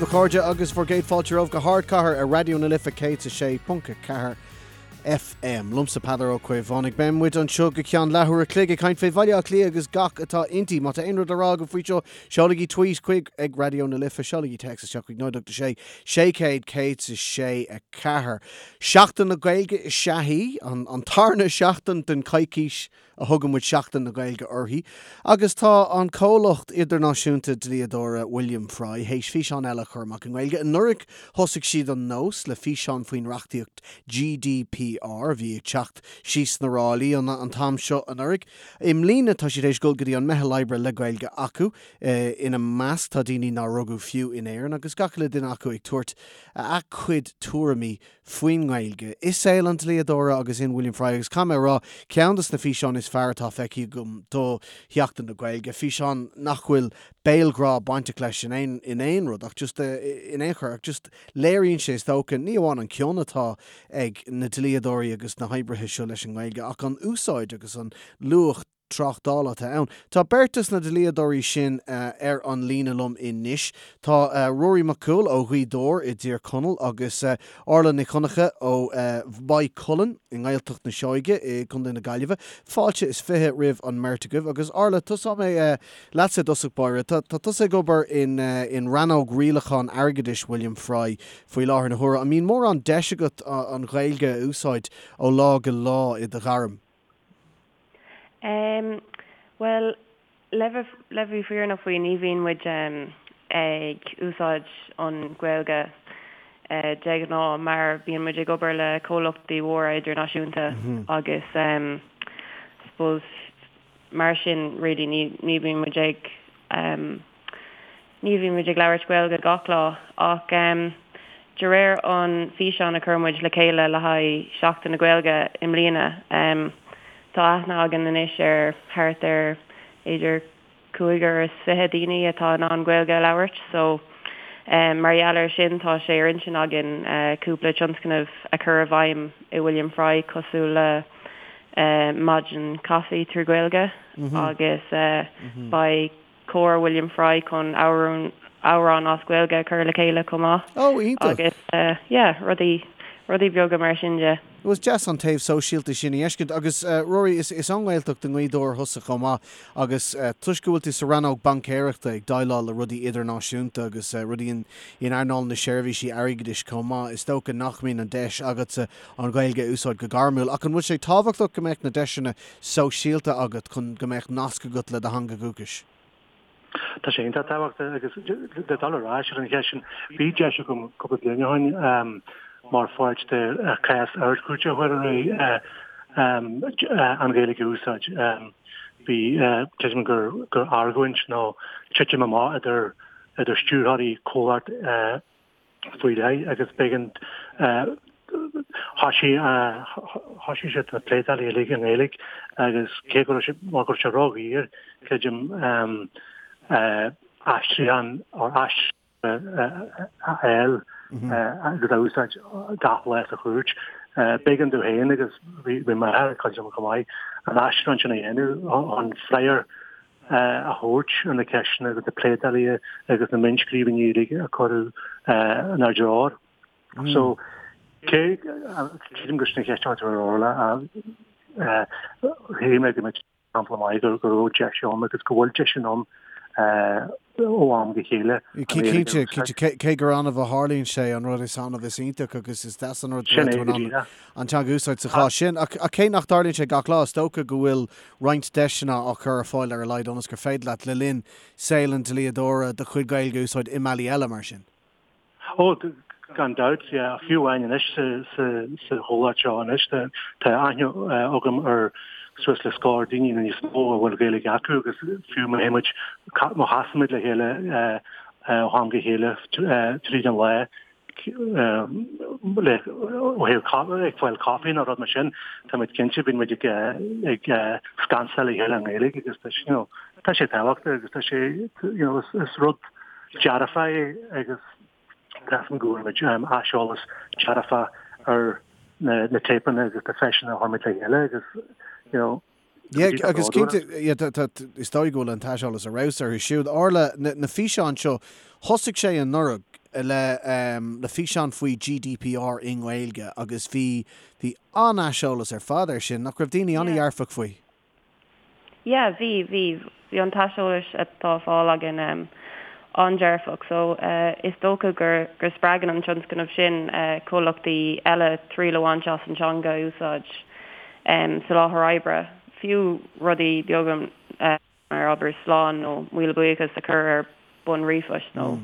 daoibh a chairde agus bhur gcéad fáilte romhaibh go hArdchathair ar Raidió na Life 106.4 FM. Liomsa Peadar Ó Caomhánaigh. Beidh muid anseo go ceann leathuair a chloig ag caint fé Bhaile Átha Cliath agus gach atá inti. Má tá aon rud le rá agaibh faoi seo, seolaigí tweet chuig ag Raidió na Life, seolaigí téacs isteach chuig 086 600 106 4. Seachtain na Gaeilge is ea í, an tarna seachtain den choicís a thugann muid Seachtain na Gaeilge uirthi, agus tá an comhlacht idirnáisiúnta dlíodóra William Fry théis físeán eile a chur amach i nGaeilge. Anuraidh thosaigh siad an nós le físeán faoin reachtaíocht GDPR a bhí ag teacht síos na ráillí an t-am seo anuraidh. I mbliana tá siad théis dul go dtí an meitheal oibre le Gaeilge acu. Ina measc tá daoine nár rugadh fiú in Éirinn agus gach uile duine acu ag tabhairt a cuid tuairimí faoin nGaeilge i saol an dlíodóra agus in William Fry agus caithfidh mé a rá, ceann de na físeáin is fearr atá feicthe agam do Sheachtain na Gaeilge, físeán nach bhfuil béalghrá bainteach leis in aon in aon rud ach just in aon chor ach just léiríonn sé is dócha ní amháin an cion atá ag na dlíodóirí agus na hoibrithe seo leis an nGaeilge ach an úsáid agus an luach tráchtála atá ann. Tá beirt de na dlíodóirí sin ar an líne liom anois. Tá Ruairí Mac Cumhaill ó Ghaoth Dobhair i dTír Chonaill agus Orla Nic Dhonncha ó Mhaigh Cuilinn i nGaeltacht na Seoige i gContae na Gaillimhe. Fáilte is 20 roimh an mbeirt agaibh. Agus Orla, tosóidh mé leatsa i dtosach báire. Tá tusa ag obair in rannóg rialachán airgeadais William Fry faoi láthair na huaire. An mbíonn mórán deis agat an Ghaeilge a úsáid ó lá go lá i do ghairm? Em, bhuel, le bheith, le bheith fírinneach faoi, ní bhíonn muid em ag úsáid an Ghaeilge eh de ghnáth mar bíonn muid ag obair le comhlachtaí mhóra idirnáisiúnta agus em suppose mar sin really ní, ní bhíonn muid ag em Ní bhíonn muid ag labhairt Gaeilge gach lá ach de réir an físeán a chuir muid le chéile le haghaidh Seachtain na Gaeilge i mbliana, tá aithne againn anois ar thart ar b'fhéidir 25 daoine atá in ann Gaeilge a labhairt so mar gheall air sin tá sé ar intinn againn cúpla tionscnamh a chur i bhfeidhm i William Fry cosúil le maidin caife trí Ghaeilge agus beidh Cór William Fry chun amhrán amhrán as Gaeilge a chur le chéile chomh maith. Oh, iontach! Agus yeah, rudaí, rudaí beaga mar sin de. Bhuel, is deas an taobh sóisialta sin a fheiscint. Agus Ruairí, is is ón nGaeltacht i nGaoth Dobhair thusa chomh maith agus toisc go bhfuil tú sa rannóg baincéireachta ag déileáil le rudaí idirnáisiúnta agus rudaí in in earnáil na seirbhísí airgeadais chomh maith, is dócha nach mbíonn an deis agatsa an Ghaeilge a úsáid go gairmiúil. Ach an bhfuil sé tábhachtach go mbeadh na deiseanna sóisialta agat chun go mbeadh nasc agat le do theanga dhúchais? Tá sé iontach tábhachtach agus le dul ar ais ar an cheist sin, bhí deis agam cúpla bliain ó shin mar pháirt de chás Ard-Chúirte a chur ar aghaidh an Ghaeilge a úsáid. Bhí, creidim gur gur argóint nó titim amach idir idir stiúrthóirí comhlacht faoi leith agus b'éigean thoisigh thoisigh siad na pléadálacha uilig i nGaeilge agus cé go raibh sé mar go raibh sé ródhaor creidim aistriúchán or aistriúchán a fháil agus a úsáid gach lá sa chúirt. B'éigean domh féin agus bhí m'athair ag cuidiú liom chomh maith an aistriúchán sin a dhéanamh chun freagra a thabhairt ar na ceisteanna agus na pléadálacha agus na mionnscríbhinní uilig a cuireadh inár dtreo. So, cé, creidim gur sin an cheist atá ar Orla, shíl mé go mbeadh sampla maith go raibh deis ann agus go bhfuil deis ann ó am go chéile. Cinnte, cinnte, cé gur annamh a tharlaíonn sé, an rud is annamh is iontach agus is deas an rud go bhfuil tú in ann an teanga a úsáid sa chás sin. Ach cé nach dtarlaíonn sé gach lá, is dócha go bhfuil roinnt deiseanna á chur ar fáil ar a laghad ionas gur féidir leat, le linn saol an dlíodóra, do chuid Gaeilge a úsáid i mbealaí eile mar sin. Ó, gan dabht, yeah. Fiú amháin anois sa chomhlacht seo anois, tá aithne agam ar suas le scór daoine nó níos mó a bhfuil Gaeilge acu agus fiú má théann muid, má chasann muid le chéile ó am go chéile tríd an lá, le ó thaobh ag fáil caife nó rud mar sin, tá muid cinnte, bíonn muid ag ag scansáil le chéile i nGaeilge agus tá you know, tá sé tábhachtach agus tá sé you know, is, is rud dearfach é agus measaim go bhfuair muid aiseolas dearfach ar na, na téipeanna agus na físeáin a chuir muid le chéile agus you know, Yeah, agus cinnte, is dóigh go bhfuil an t-aiseolas ar fheabhas orthu siúd. Orla, na físeáin seo, thosaigh sé anuraidh. le le físeán faoi GDPR i nGaeilge agus bhí bhí an-aiseolas ar fad air sin, nach raibh daoine an-dhearfach faoi? Yeah, bhí, bhí. Bhí an t-aiseolas atá á fáil againn an-dearfach so is dócha gur go spreagann an tionscnamh sin comhlachtaí eile triail a bhaint as an teanga a úsáid sa láthair oibre, fiú rudaí beaga mar abair slán nó míle buíochas a chur ar bun ríomhphoist nó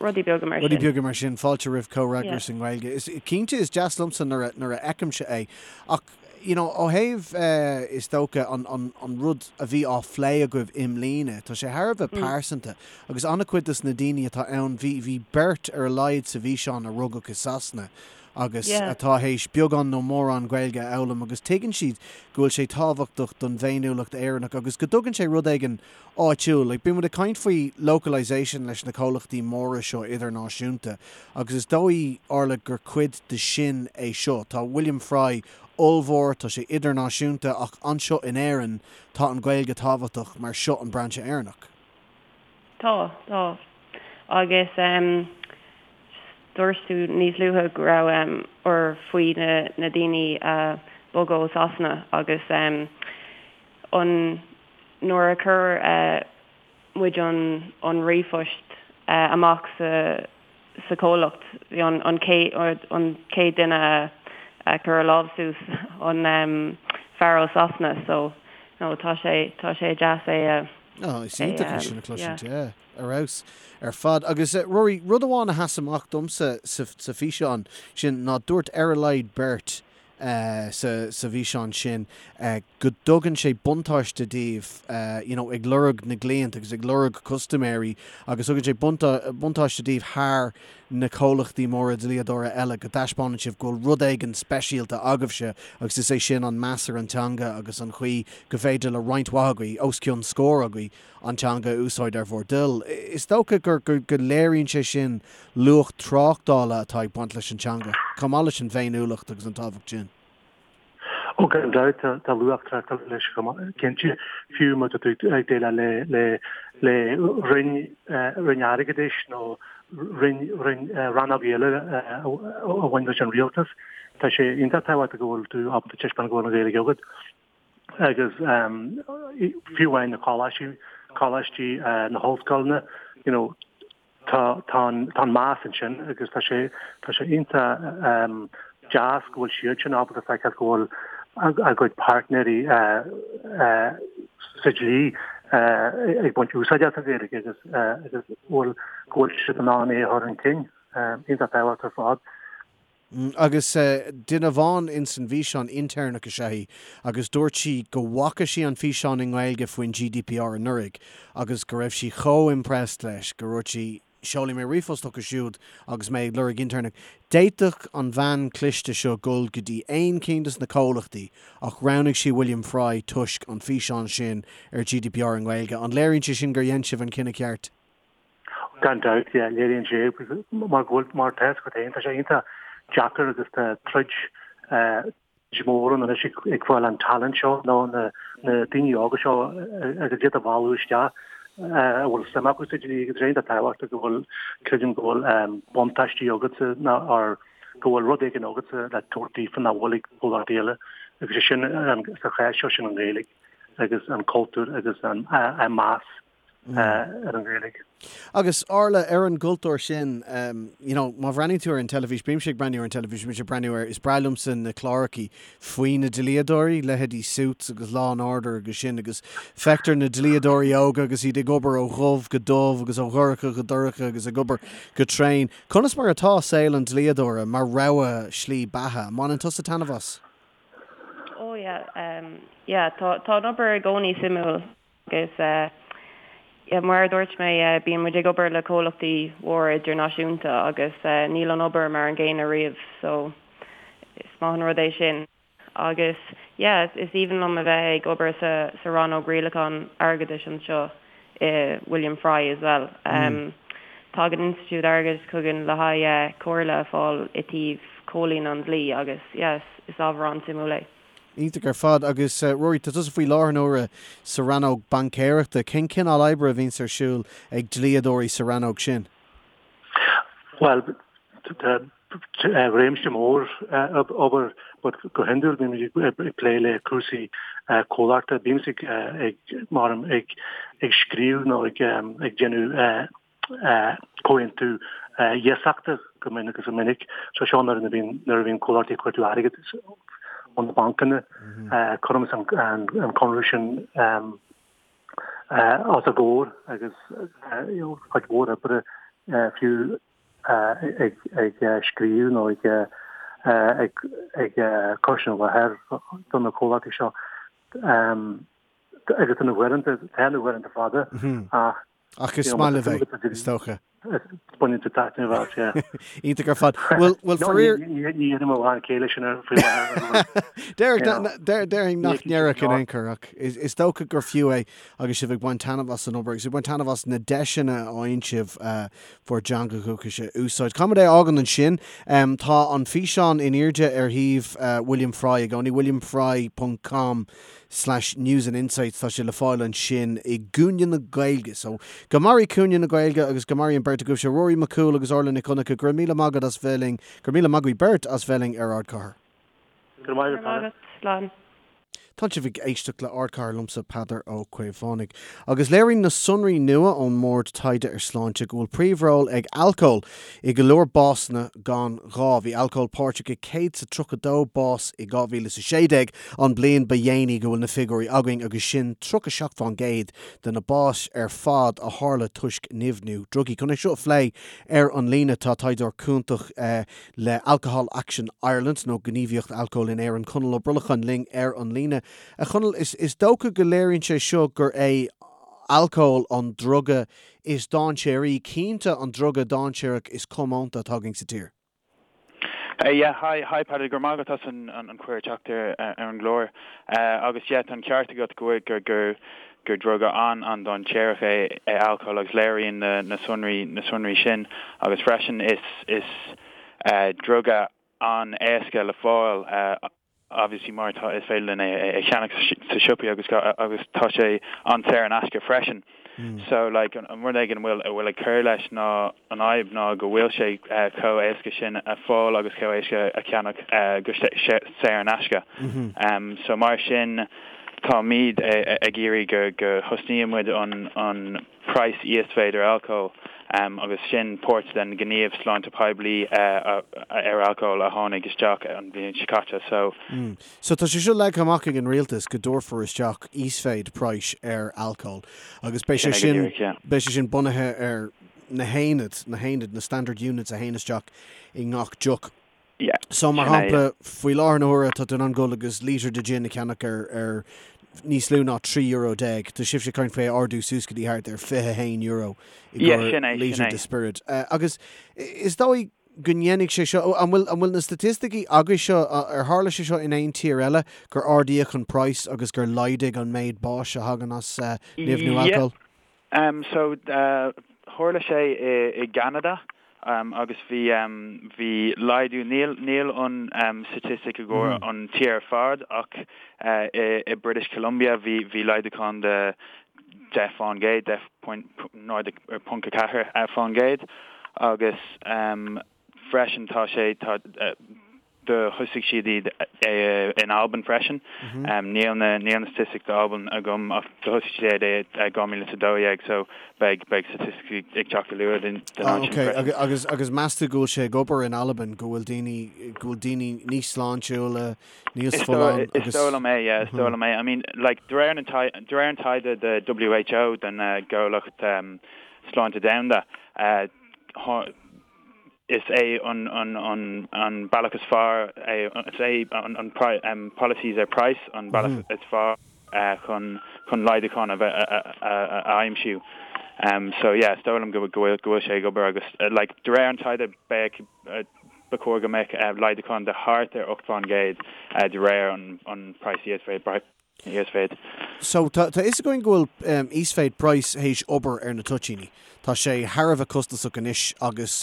rudaí beaga mar sin. Rudaí beaga mar sin. Fáilte roimh comhfhreagras i nGaeilge. Is cinnte is deas liomsa nuair a nuair a fheicimse é. Ach you know ó thaobh is dócha an an an rud a bhí á phlé agaibh i mbliana, tá sé thar a bheith pearsanta agus an-chuid dos na daoine atá ann, bhí bhí beirt ar a laghad sa bhfíseán a rugadh i Sasana agus atá théis beagán nó mórán Gaeilge a fhoghlaim agus tuigeann siad go bhfuil sé tábhachtach don bhféiniúlacht Éireannach agus go dtugann sé rud éigin áitiúil. Like, bíonn muid ag caint faoi localisation leis na comhlachtaí móra seo idirnáisiúnta agus is dóigh, Orla, gur cuid de sin é seo. Tá William Fry ollmhór, tá sé idirnáisiúnta ach anseo in Éirinn tá an Ghaeilge tábhachtach mar seo an brainse Éireannach. Tá, tá. Agus em dúirt tú níos luaithe go raibh em or faoi na na daoine a bhog ó Sasana agus em an Nuair a chuir muid an ríomhphost amach sa chomhlacht, bhí an chéad duine a chuir a lámh suas an fear ó Sasana so no tá sé tá sé deas é a Oh, is iontach é sin a chloisint, yeah, ar fheabhas ar fad. Agus Rory, rud amháin a sheas amach domsa sa físeán sin ná dúirt ar a laghad beirt sa sa bhfíseán sin go dtugann sé buntáiste daoibh you know ag lorg na gcliant agus ag lorg custaiméirí agus tugann sé buntáiste daoibh thar na comhlachtaí móra dlíodóra eile go dtaispeánann sibh go bhfuil rud éigin speisialta agaibhse agus is é sin an meas ar an teanga agus an chaoi go bhféidir le roinnt mhaith agaibh, os cionn scór agaibh, an teanga a úsáid ar bhur dtoil. Is dócha gur go léiríonn sé sin luach tráchtála atá ag baint leis an teanga, chomh maith leis an bhféiniúlacht agus an tábhacht sin. Ó gan dabht, tá luach tráchtála leis chomh maith, cinnte, fiú má tá tú ag déileáil le le le roinn roinn airgeadais nó roinn roinn rannóg eile a bhain leis an rialtas, tá sé iontach tábhachtach go bhfuil tú ábalta taispeáint go bhfuil an Ghaeilge agat. agus fiú amháin na coláistí, coláistí na hollscoileanna, you know, tá tá an tá an meas ansin agus tá sé tá sé iontach deas go bhfuil siad sin ábalta feiceáil go bhfuil a gcuid páirtnéirí sa dlí ag baint úsáid as an Ghaeilge agus agus go bhfuil go bhfuil siad in ann é a chur chun cinn. Iontach tábhachtach ar fad. Agus duine amháin ins an bhfíseán, intéirneach is ea í, agus dúirt sí go bhfaca sí an físeán i nGaeilge faoin GDPR anuraidh agus go raibh sí chomh impressed leis go ndúirt sí, seolfaidh mé ríomhphost chucu siúd agus mé ag lorg intéirneach. D'fhéadfadh an bhean cliste seo dul go dtí aon cinn des na comhlachtaí ach roghnaigh sí William Fry toisc an físeán sin ar GDPR i nGaeilge. An léiríonn sé sin gur dhein sibh an cinneadh ceart? Gan dabht, yeah, léiríonn sé mar go bhfuil, mar tá a fhios agat féin, tá sé iontach deacair agus tá troid mhór ann anois ag fáil an talent seo nó na daoine óga seo agus iad a mhealladh isteach a bhfuil suim acu sa dlí agus é iontach tábhachtach go bhfuil, creidim go bhfuil buntáistí agatsa nó or go bhfuil rud éigin agatsa le tabhairt daofa nach bhfuil ag comhlachtaí eile agus é sin sa chás seo sin an Ghaeilge agus an cultúr agus an meas. ar an Ghaeilge. Agus Orla, ar an gcultúr sin, you know, má bhreathnaíonn tú ar an teilifís, bímse ag breathnú ar an teilifís, bímse ag breathnú ar, is breá liomsa na clárachaí faoi na dlíodóirí, leithéidí Suits agus Law and Order agus sin, agus feictear na dlíodóirí óga agus iad ag obair ó dhubh go dubh agus ó dhorcha go dorcha agus ag obair go tréan. Conas mar atá saol an dlíodóra mar rogha slí beatha? An mbaineann tusa taitneamh as? Oh yeah, yeah, tá, tá an obair i gcónaí suimiúil. Agus yeah, mar a dúirt mé, bíonn muid ag obair le comhlachtaí mhóra idirnáisiúnta agus níl an obair mar an gcéanna riamh so is maith an rud é sin. Agus yeah, is aoibhinn liom a bheith ag obair sa sa rannóg rialachán airgeadais anseo i William Fry as well. Tagann institiúid airgeadais chugainn le haghaidh comhairle a fháil i dtaobh comhlíonadh an dlí agus yeah, is ábhar an-suimiúil é. Iontach ar fad. Agus Rory, tá tusa faoi láthair na huaire sa rannóg baincéireachta. Cén cineál oibre a bhíonns ar siúl ag dlíodóirí sa rannóg sin? Bhuel, tá réimse mór obair but go hiondúil bímid ag plé le cúrsaí comhlachta. Bímse ag mar ag ag scríobh nó ag ag déanamh comhaontú iasachta go minic is go minic. So seo nuair a bhíonn nuair a bhíonn comhlachtaí ag cuartú airgid ó na bancanna cuirimse an conradh sin os a gcomhair agus cuid mhór oibre fiú ag scríobh nó ag ag cur sin i láthair do na comhlachtaí seo. Agus tá na huaireanta, tá na huaireanta fada ach Ach is maith libh é, is dócha. Baineann tú taitneamh as, yeah. Iontach ar fad. Bhuel, bhuel faraor... Ní dhéanaim a lán céille sin ar faoi láthair. Déarfainn nach ndéarfadh in aon chor ach is dócha gur fiú é agus sibh ag baint taitneamh as an obair agus ag baint taitneamh as na deiseanna a fhaigheann sibh bhur dteanga dhúchais a úsáid. Caithfidh muid é a fhágaint ansin. Tá an físeán in airde ar shuíomh William Fry i gcónaí, williamfry ponc com. slash news and insights tá sé le fáil ansin i gcúinne na Gaeilge. So, go mairí cúinne na Gaeilge agus go mairí an bheirt agaibhse, Ruairí Mac Cumhaill agus Orla Nic Dhonncha, go raibh míle maith agat as bheith linn, go raibh míle maith agaibh beirt as bheith linn ar Ardchathair. Go raibh maith agat, Slán. Tá sibh ag éisteacht le Ardchathair liomsa Peadar Ó Caomhánaigh. Agus léiríonn na sonraí nua ón mBord Taighde ar Sláinte go bhfuil príomhról ag alcól i go leor básanna gan ghá. Bhí alcól páirteach i 132 bás i 2016, an bliain ba dhéanaí go bhfuil na figiúirí againn, agus sin 37% de na báis ar fad a tharla toisc nimhniú drugaí. Chun é seo a phlé ar an líne tá taighdeoir cúntach le Alcohol Action Ireland, nó Gníomhaíocht Alcóil in Éirinn, Conall Ó Brolacháin linn ar an líne. A Chonaill, is dócha go léiríonn sé seo gur é alcól an druga is dainséaraí, cinnte an druga dainséarach is comónta atá againn sa tír. Yeah, hi, hi Peadar, go raibh maith agat as an an cuireadh teacht ar ar an gclár. Agus yeah, tá an ceart agat go bhfuil gur gur gur druga an an-dainséarach é é alcól agus léiríonn na na sonraí na sonraí sin agus freisin is is druga an-éasca le fáil obviously mar tá is féidir linn é a cheannach sa siopaí agus agus tá sé an-saor in aisce freisin. So like an rud éigin a bhfuil a bhfuil ag cur leis ná an fhadhb ná go bhfuil sé chomh éasca sin a fáil agus chomh éasca a cheannach go saor in aisce. So mar sin táimid ag iarraidh go go thosnaíonn muid an an praghas íosmhéid ar alcól agus sin páirt den ghníomh sláinte poiblí ar alcól a tháinig isteach an bhliain seo caite. So. So tá sé seo leagtha amach ag an rialtas go dtabharfar isteach íosmhéid praghais ar alcól agus beidh sé sin, beidh sé sin bunaithe ar na haonaid, na haonaid, na standard units a théann isteach i ngach deoch. Yeah. So mar shampla, faoi láthair na huaire tá tú in ann dul agus lítear de gin a cheannach ar ar níos lú ná €13 euro. Tá sibhse ag caint faoi é a ardú suas go dtí thart ar €21 i gcomhair lítear de spiorad. Agus is dóigh go ndéanfaidh sé seo, an bhfuil an bhfuil na staitisticí agaibh seo, ar tharla sé seo in aon tír eile, gur ardaíodh an praghas agus gur laghdaigh an méid báis a thagann as nimhniú alcóil? So, tharla sé i gCeanada agus bhí, bhí laghdú, níl, níl an statistic i gcomhair an tír ar fad ach i British Columbia bhí, bhí laghdúchán de 10%, 10.04% agus freisin tá sé, tá, Do thosaigh siad iad in Albain freisin. Níl na níl na staitisticí d'Albain agam ach do thosaigh siad é i 2012 so beidh beidh staitisticí ag teacht go luath den áit sin freisin. Ok agus agus meas tú go bhfuil sé ag obair in Albain go bhfuil daoine go bhfuil daoine níos sláintiúla, níos folláine agus. Is dóigh liom é yeah is dóigh liom é. I mean like de réir na de réir an taighde de WHO den gComhlacht Sláinte Domhanda Is é an bealach is fearr é, is é an policies ar price an bealach is fearr chun chun laghdúchán a bheith a aimsiú. So yeah, is dóigh liom go bhfuil go bhfuil sé ag obair agus like de réir an taighde beidh ba chóir go mbeadh laghdúchán de thart ar 8% de réir an praghas íosmhéid. Íosmhéid. So, tá a fhios againn go bhfuil íosmhéid praghais théis obair ar na toitíní. Tá sé thar a bheith costasach anois agus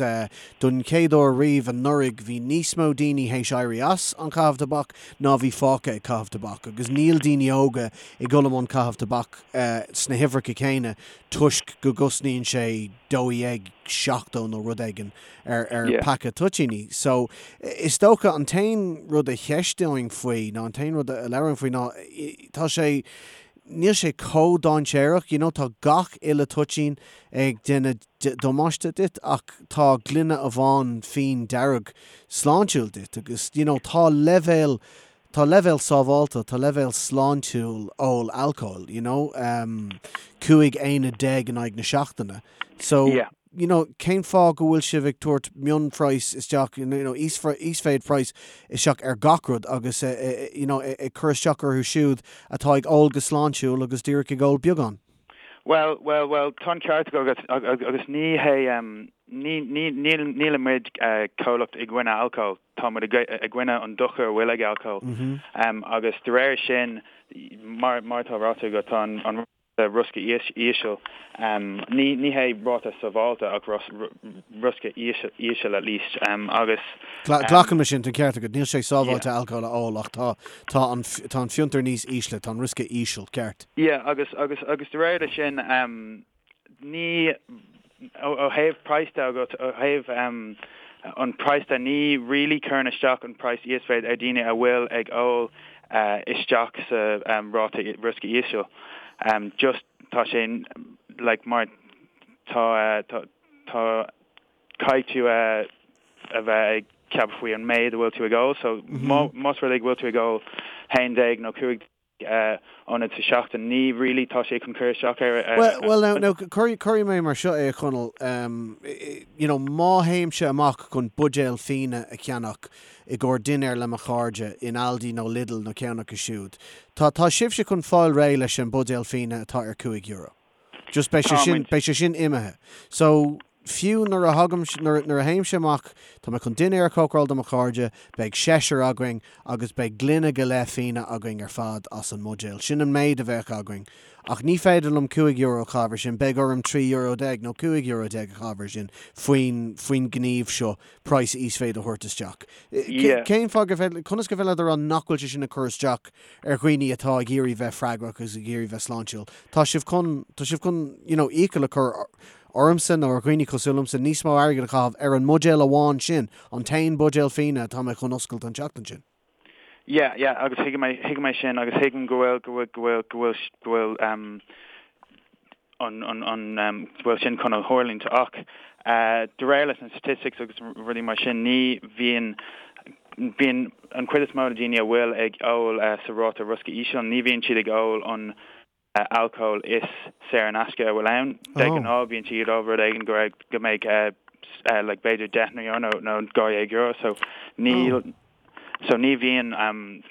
don chéad uair riamh anuraidh bhí níos mó daoine théis éirí as an chaitheamh tobac ná bhí fágtha ag caitheamh tobac agus níl daoine óga ag dul i mbun caitheamh tobac sna huimhreacha céanna toisc go gcosnaíonn sé €12. 70 nó rud éigin ar ar paca toitíní. So is dócha an t-aon rud a cheisteoinn faoi nó an t-aon rud a labhróinn faoi ná tá sé níl sé chomh dainséarach, you know, tá gach uile toitín ag déanamh damáiste duit ach tá gloine amháin fíon dearg sláintiúil duit agus you know tá leibhéal tá leibhéal sábháilte, tá leibhéal sláintiúil ól alcóil, you know, 15 aonad in aghaidh na seachtaine. So, Yeah. you know, cén fáth go bhfuil sibh ag tabhairt mionphraghas isteach, you know, íosmhéid praghas isteach ar gach rud agus, you know, ag cur isteach orthu siúd atá ag ól go sláintiúil agus díreach ag ól beagán? Bhuel, bhuel, bhuel, tá an ceart agat agus ní hé, ní, ní, níl, nílimid comhlacht i gcoinne alcóil, tá muid i gcoinne an dochar a bhfuil ag alcól. Agus de réir sin, mar, mar atá ráite agat, tá an, riosca íseal. Ní ní hé ráta sábháilte ach riosca íseal at least agus. Glacaim leis sin, tá an ceart agat, níl sé sábháilte alcól a ól ach tá tá an tá an fiontar níos ísle, tá an riosca íseal, ceart. Yeah agus agus agus de réir leis sin ní ó thaobh praghas de agus ó thaobh an praghas de ní really cuireann isteach an praghas íosmhéid ar daoine a bhfuil ag ól isteach sa ráta riosca íseal. Just tá sé like mar tá tá tá caithfidh tú a bheith ag ceapadh faoi an méid a bhfuil tú ag ól so más rud é go bhfuil tú ag ól 11 nó 15 ionad sa seachtain. Ní really tá sé chun cur isteach ar. Bhuel, well now, now cuirfidh mé mar seo é a Chonaill, you know má théimse amach chun buidéal fíona a cheannach i gcomhair dinnéar le mo chairde in Aldi nó Lidl nó ceann acu siúd, tá, tá sibhse chun fáil réidh leis an buidéal fíona atá ar €5. Just beidh sé sin, beidh sé sin imithe. So, fiú nuair a thagaim, nuair, nuair a théimse amach, tá mé chun dinnéar a chócaráil do mo chairde, beidh seisear againn agus beidh gloine go leith fíona againn ar fad as an mbuidéal. Sin an méid a bheadh againn. Ach ní féidir liom €5 a chaitheamh ar sin, beidh orm €13 nó €15 a chaitheamh ar sin faoin, faoin ngníomh seo praghas íosmhéid a thabhairt isteach. Cén fáth gur féidir, conas gur féidir leat a rá nach bhfuil sé sin ag cur isteach ar dhaoine atá ag iarraidh bheith freagrach agus ag iarraidh bheith sláintiúil. Tá sibh chun, tá sibh chun, you know, iachall a chur ormsa nó ar dhaoine cosúil liomsa níos mó airgid a chaitheamh ar an mbuidéal amháin sin, an t-aon buidéal fíona atá mé chun oscailt an tseachtain sin. Yeah, yeah, agus thuigim é, thuigim é sin agus thuigim go bhfuil, go bhfuil, go bhfuil, go bhfuil, go bhfuil, um, an an bhfuil sin chun a tharlúint ach de réir leis na statistics agus rudaí mar sin ní bhíonn bíonn an chuid is mó de daoine a bhfuil ag ól sa ráta riosca íseal ní bhíonn siad ag ól an alcól is saor in aisce a bhfuil ann. De ghnáth bíonn siad ag ól rud éigin go raibh go mbeidh like b'fhéidir €10 nó nó €12 so níl So ní bhíonn,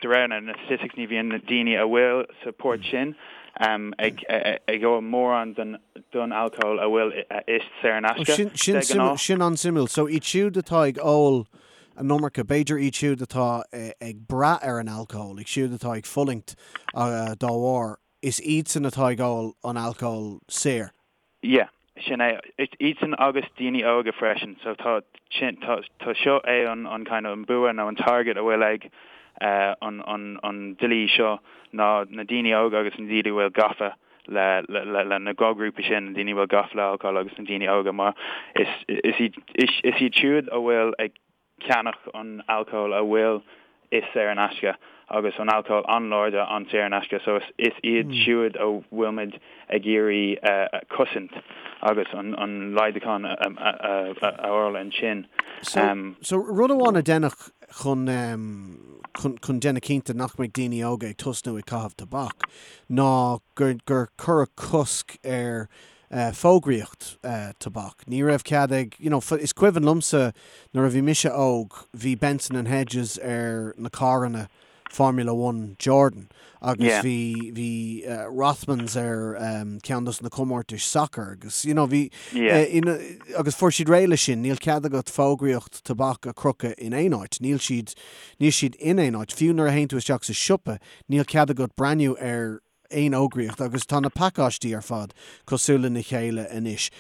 de réir na statistics, ní bhíonn na daoine a bhfuil sa port sin ag ag ól mórán den don alcól a bhfuil is saor in aisce, de ghnáth. Sin an-suimiúil. So iad siúd atá ag ól an iomarca, b'fhéidir iad siúd atá ag brath ar an alcól, iad siúd atá ag fulaingt dá bharr, is iadsan atá ag ól an alcól saor. Yeah, sin é. Iadsan agus daoine óga freisin. So tá sin, tá, tá seo é an, an kind of an bua nó an target a bhfuil ag an, an, an dlí seo ná na daoine óga agus na daoine a bhfuil gafa le, le, le, le na dhá ghrúpa sin, na daoine a bhfuil gafa le alcól agus na daoine óga mar is, is iad, is, is iad siúd a bhfuil ag ceannach an alcól a bhfuil is saor in aisce agus an alcól an-láidir an-saor in aisce so is iad siúd a bhfuilimid ag iarraidh cosaint agus an laghdúchán a fháil ansin. So rud amháin a deineadh chun chun déanamh cinnte nach mbeidh daoine óga ag tosnú ag caitheamh tobac ná gur gur cuireadh cosc ar fógraíocht tobac. Ní raibh cead ag, you know, is cuimhin liomsa nuair a bhí mise óg, bhí Benson and Hedges ar na carranna Formula One Jordan agus bhí, bhí Rothmans ar ceann dos na comórtais sacair agus, you know, bhí, agus fuair siad réidh leis sin. Níl cead agat fógraíocht tobac a chrochadh in aon áit. Níl siad, níl siad in aon áit. Fiú nuair a théann tú isteach sa siopa, níl cead agat breathnú ar aon fhógraíocht agus tá na pacáistí ar fad cosúil lena chéile anois.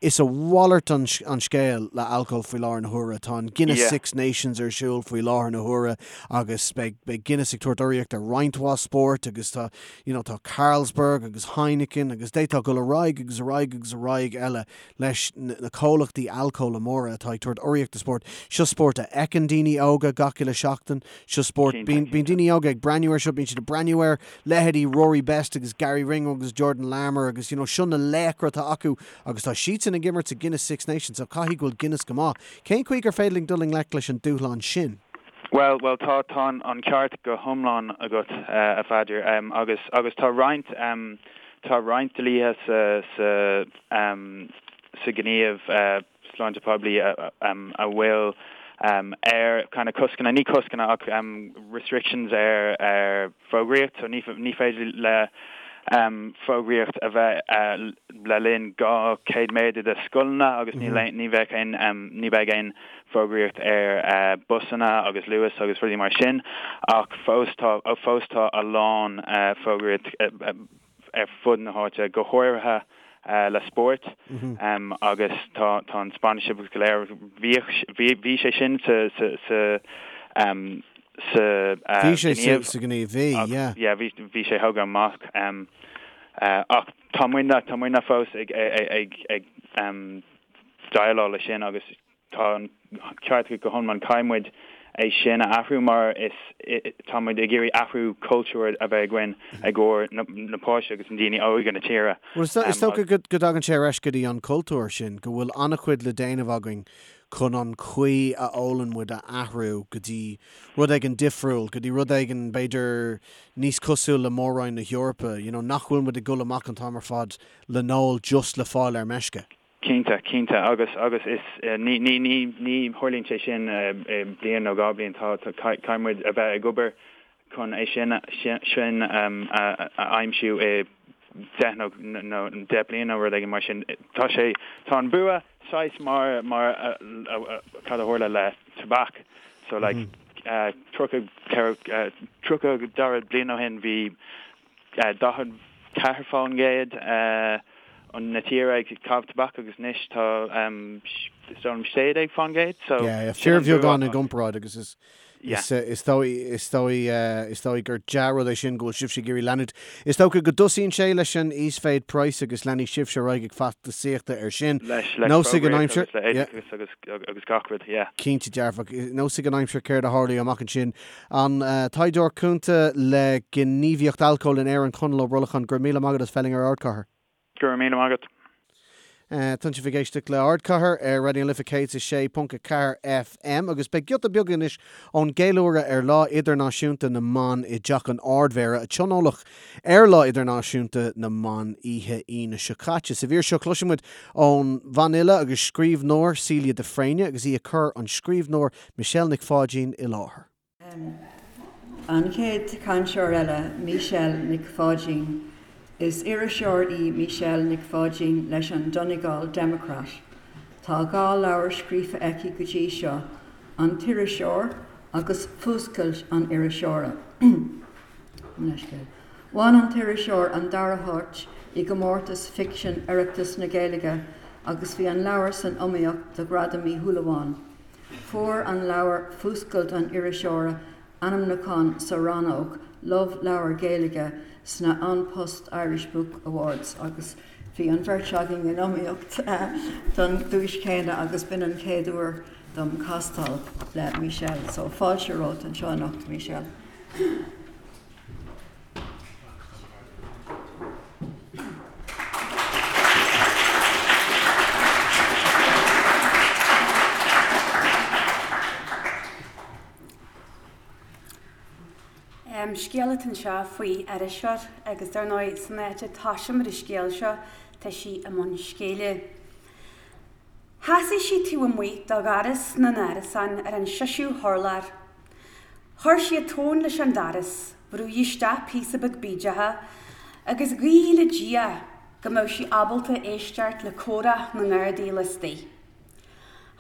Is a mhalairt an scéal le alcól faoi láthair na huaire. Tá an Guinness Six Nations ar siúl faoi láthair na huaire agus beidh beidh Guinness ag tabhairt urraíocht ar roinnt mhaith spóirt agus tá you know tá Carlsberg agus Heineken agus d'fhéadfá dul ar aghaidh agus ar aghaidh agus ar aghaidh eile leis na comhlachtaí alcóla móra atá ag tabhairt urraíocht do spórt. Seo spórt a fheiceann daoine óga gach uile seachtain. Seo spórt, bíonn daoine óga ag breathnú air seo, bíonn siad ag breathnú ar leithéidí Rory Best agus Garry Ringrose agus Jordan Larmour agus you know seo na laochra atá acu agus tá siadsan ag imirt sa Guinness Six Nations so caithfidh go bhfuil Guinness go maith. Cén chaoi gur féidir linn dul i ngleic leis an dúshlán sin? Bhuel, bhuel tá, tá an ceart go hiomlán agat, a Pheadair, agus, agus tá roinnt, tá roinnt dlíthe sa, sa, sa ghníomh sláinte poiblí a bhfuil ar kind of coscanna, ní coscanna ach restrictions ar ar fógraíocht, so ní ní féidir le fógraíocht a bheith le linn 200 méadar de scoileanna agus ní ní bheadh aon ní bheidh aon fógraíocht ar busanna agus Luas agus rudaí mar sin ach fós tá fós tá a lán fógraíocht ar fud na háite, go háirithe le spórt agus tá tá an sponsorship go léir, bhíodh bhí bhí sé sin sa sa sa sa Bhí sé sa sa ghníomh, bhí, yeah. Yeah, bhí bhí sé thógtha amach ach tá muidne tá muidne fós ag ag ag déileáil leis sin agus Tá an ceart agat go hiomlán. Caithfidh muid é sin a athrú mar is tá muid ag iarraidh athrú cultúir a bheith againn i gcomhair na páistí agus na daoine óga na tíre. Bhuel, is dócha go dtagann sé ar ais go dtí an cultúr sin, go bhfuil an-chuid le déanamh againn chun an chaoi a ólann muid a athrú go dtí rud éigin difriúil, go dtí rud éigin b'fhéidir níos cosúil le Mór-Roinn na hEorpa, you know, nach bhfuil muid ag dul amach an t-am ar fad le n-ól just le fáil ar meisce. Cinnte, cinnte, agus, agus is, ní, ní, ní, ní tharlaíonn sé sin i bliain nó 2 bliain, tá, tá, caithfidh muid a bheith ag obair chun é sin, sin a aimsiú i 10 nó, nó 10 bliain nó rud éigin mar sin. Tá sé, tá an bua saghas mar, mar cad a tharla le tobac, so like, 30, 30 40 bliain ó shin bhí, 44% na tíre ag caitheamh tobac agus anois tá is dóigh liom 16% so Yeah, yeah, fíorbheagán i gcomparáid agus is is is dóigh is dóigh is dóigh gur dea-rud é sin go bhfuil sibhse ag iarraidh leanúint. Is dócha go dtosaíonn sé leis an íosmhéid praghas agus leanfaidh sibhse ar aghaidh ag feachtasaíochta air sin. Leis leis Nós ag an aimsir, agus le yeah. oideachas agus agus gach rud, yeah. Cinnte dearfach. Nós ag an aimsir céard a tharlóidh amach ansin. An taighdeoir cúnta le gníomhaíocht alcóil in Éirinn, Conall Ó Brolacháin, go raibh míle maith agat as bheith linn ar Ardchathair. Go raibh míle maith agat. Tá sibh ag éisteacht le Ardchathair ar Raidió na Life 106.4 FM agus beidh giota beag anois ón gceiliúradh ar Lá Idirnáisiúnta na mBan i dTeach an Ardmhéara a tionóladh ar Lá Idirnáisiúnta na mBan oíche Aoine seo caite. Sa mhír seo cloisfidh muid ón bhanfhile agus scríbhneoir Celia de Fréine agus í ag cur an scríbhneoir Michelle Nic Pháidín i láthair. An chéad chainteoir eile, Michelle Nic Pháidín. Is iriseoir í Michelle Nic Pháidín leis an Donegal Democrat. Tá 2 leabhar scríofa aici go dtí seo, An tIriseoir agus Fuascailt an Iriseora. Bhain An tIriseoir an dara háit i gcomórtas ficsin Oireachtas na Gaeilge agus bhí an leabhar san iomaíocht do Ghradam Uí Shúilleabháin. Fuair an leabhar Fuascailt an Iriseora ainmniúchán sa rannóg Love Leabhar Gaeilge sna An Post Irish Book Awards agus bhí an bheirt againn in iomaíocht don duais chéanna agus b'in an chéad uair dom castáil le Michelle. So fáilte romhat anseo anocht, Michelle. Scéal atá anseo faoi iriseoir agus dar ndóigh san áit a dtosaímid an scéal seo tá sí i mbun scéile. Sheasaigh sí taobh amuigh de dhoras na n-árasán ar an seisiú hurlár. Chuir sí a tóin leis an doras, bhrúigh isteach píosa beag bídeacha agus ghuigh le Dia go mbeadh sí ábalta éisteacht le comhrá na ngardaí laistigh.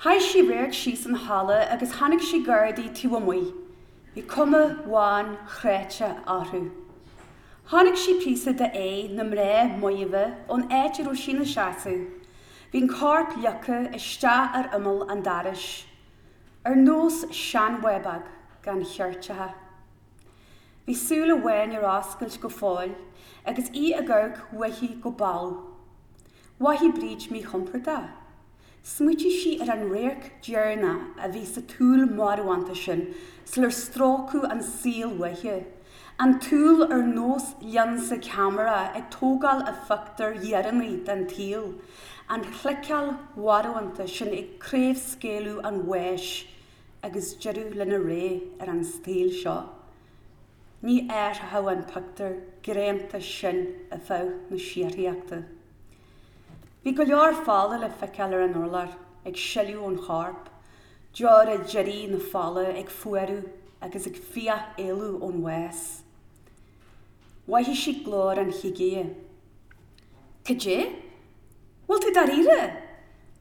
Chaith sí radharc síos an halla agus chonaic sí gardaí taobh amuigh. Bhí cuma bhán chráite orthu. Chonaic sí píosa de aghaidh na mná maoimhe ón áit a raibh sí ina seasamh. Bhí an corp leagtha isteach ar imeall an dorais, ar nós seanbhábóg gan cheirteacha. Bhí súil amháin ar oscailt go fóill agus í ag amharc uaithi go balbh. Mhothaigh Bríd míchompordach. Smaoitigh sí ar an radharc deireanach a bhí sa tsúil mharbhánta sin sular stróiceadh an saol uaithi, an tsúil ar nós lionsa ceamara ag tógáil a phictiúir dheireanaigh den tsaol, an chliceáil mharbhánta sin ag craobhscaoileadh an bháis agus deireadh lena ré ar an saol seo. Ní athródh an pictiúr greanta sin ar feadh na síoraíochta. Bhí go leor fola le feiceáil ar an urlár, ag sileadh ón chorp, deora deiridh na fola ag fuarú agus ag fiach éalú ón bhás. Mhothaigh sí glór an chigire. Cad é? Bhfuil tú dáiríre?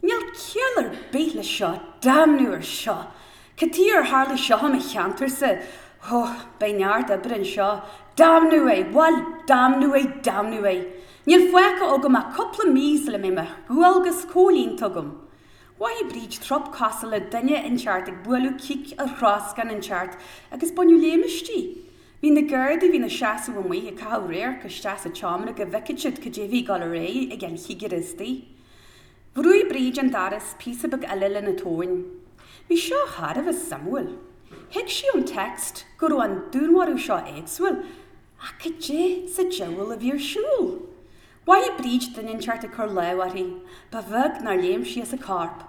Níl ciall ar bith leis seo, damnú ar seo! Cad chuige ar tharla seo i mo cheantarsa? Ó, beidh neart oibre anseo. Damnú é! Bhail, damnú é, damnú é! Níl fágtha agam ach cúpla mí sula mbeidh mo dhualgas comhlíonta agam. Mhothaigh Bríd trup cosúil le duine inteacht ag bualadh cic ar throscán inteacht agus baineadh léim aisti. Bhí na Gardaí a bhí ina seasamh amuigh ag caitheamh radharc isteach sa tseomra go bhfeicfeadh siad cad é bhí ag dul ar aghaidh ag an chigire istigh. Bhrúigh Bríd an doras píosa beag eile lena tóin. Bhí seo thar a bheith suimiúil. Thuig sí ón text go raibh an dúnmharú seo éagsúil Ach cad é sa diabhal a bhí ar siúl? Mhothaigh Bríd duine inteacht ag cur lámh uirthi. Ba bheag nár léim sí as a corp.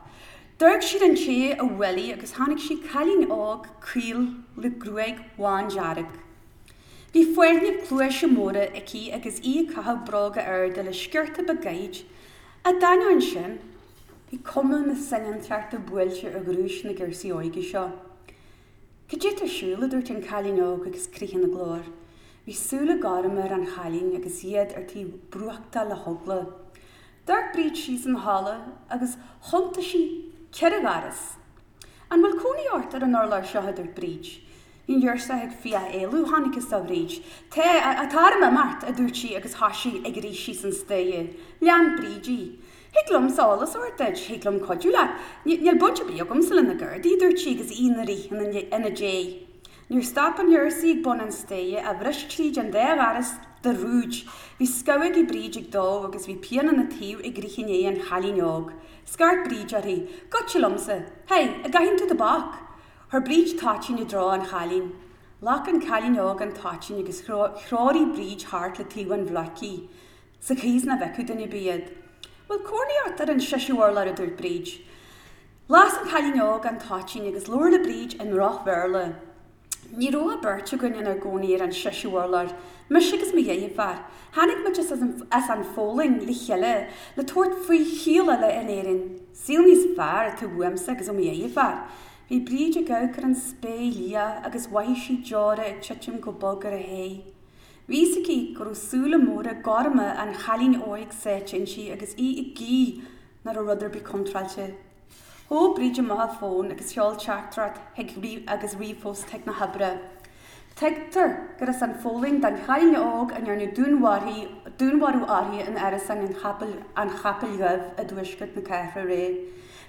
D'amharc sí ar an té a bhuail í agus chonaic sí cailín óg caol le gruaig bhándearg. Bhí fáithníbh cluaise móra aici agus í ag caitheamh bróga arda le sciorta beag gairid. Ach d'ainneoin sin, bhí cuma na soineantachta buailte ar ghnúis na girseaí óige seo. Cad é tá ar siúl? a dúirt an cailín óg agus crith ina glór. Bhí súile gorma ar an chailín agus iad ar tí brúchtáil le heagla. D'amharc Bríd síos an halla agus chuntaigh sí ceithre dhoras. An bhfuil cónaí ort ar an urlár seo? a dúirt Bríd. Bhí an ghirseach ag fiach éalú, chonacthas do Bhríd. Tá, tá orm imeacht, a dúirt sí agus thoisigh ag rith síos an staighre. Lean Bríd í. Thig liomsa eolas a thabhairt duit, thig liom cuidiú leat. Níl baint ar bith agamsa le na Gardaí, a dúirt sí agus í ina rith ina diaidh. Níor stop an ghirseach ag bun an staighre ach bhris tríd an dá dhoras de rúid. Bhí scamhógaí Bríd ag dó agus bhí pian ina taobh ag rith i ndiaidh an chailín óg. Scairt Bríd uirthi, Goitse liomsa! Hey, an gcaitheann tú tobac? Chuir Bríd toitín i dtreo an chailín. Ghlac an cailín óg an toitín agus threoraigh Bríd thart le taobh an bhloic í. Sa chaoi is nach bhfeicfeadh duine ar bith iad. Bhfuil cónaí ort ar an seisiú urlár a dúirt Bríd. Las an cailín óg an toitín agus labhair le Bríd i ndroch-Bhéarla. Ní raibh ach beirt againn inár gcónaí ar an seisiú urlár, mise agus mo dheirfiúr. Tháinig muid as an Pholainn le chéile le tabhairt faoi shaol eile in Éirinn. Saol níos fearr atá uaimse agus ó mo dheirfiúr. Bhí Bríd ag amharc ar an spéir liath agus mhothaigh sí deora ag titim go bog ar a haghaidh. Bhí fhios aici go raibh súile móra gorma an chailín óig sáite inti agus í ag guí nach raibh rud ar bith contráilte. Thóg Bríd amach a fón agus sheol teachtaireacht chuig agus ríomhphost chuig na hoibre. Tuigtear gur as an Pholainn don chailín óg a ndearnadh dúnmharú uirthi in árasán an Chapaill Dhuibh i dtuaisceart na cathrach aréir.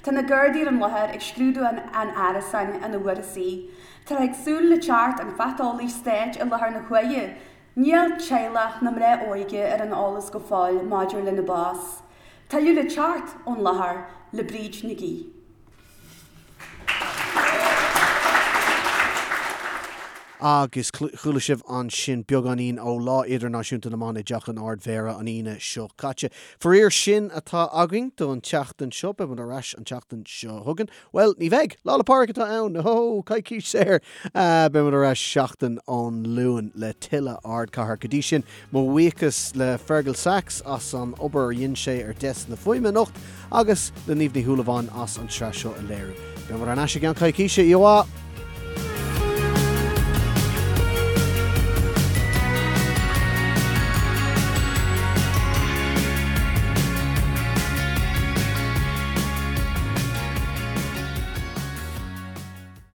Tá na Gardaí ar an láthair ag scrúdú an árasáin ina bhfuarthas í. Táthar ag súil le teacht an phatálaí stáit i láthair na huaire. Níl teaghlach na mná óige ar an eolas go fóill maidir lena bás. Tuilleadh le teacht ón láthair le Bríd Nic Aoidh. Agus chuala sibh ansin beagáinín ó Lá Idirnáisiúnta na mBan i dTeach an Ard-Mhéara an Aoine seo caite. Faraor sin atá againn don tseachtain seo. Beidh muid ar ais an tseachtain seo chugainn. Bhuel, ní bheidh! Lá 'le Pádraig atá ann! Ó, coicís saor! Beidh muid ar ais seachtain ón Luan le tuilleadh Ardchathair. Go dtí sin, mo bhuíochas le Fergal Sachs as an obair a dhein sé ar dheasc na fuaime anocht agus le Niamh Ní Shúilleabháin as an tsraith seo a léiriú. Beidh muid ar ais i gceann coicíse. Oíche mhaith!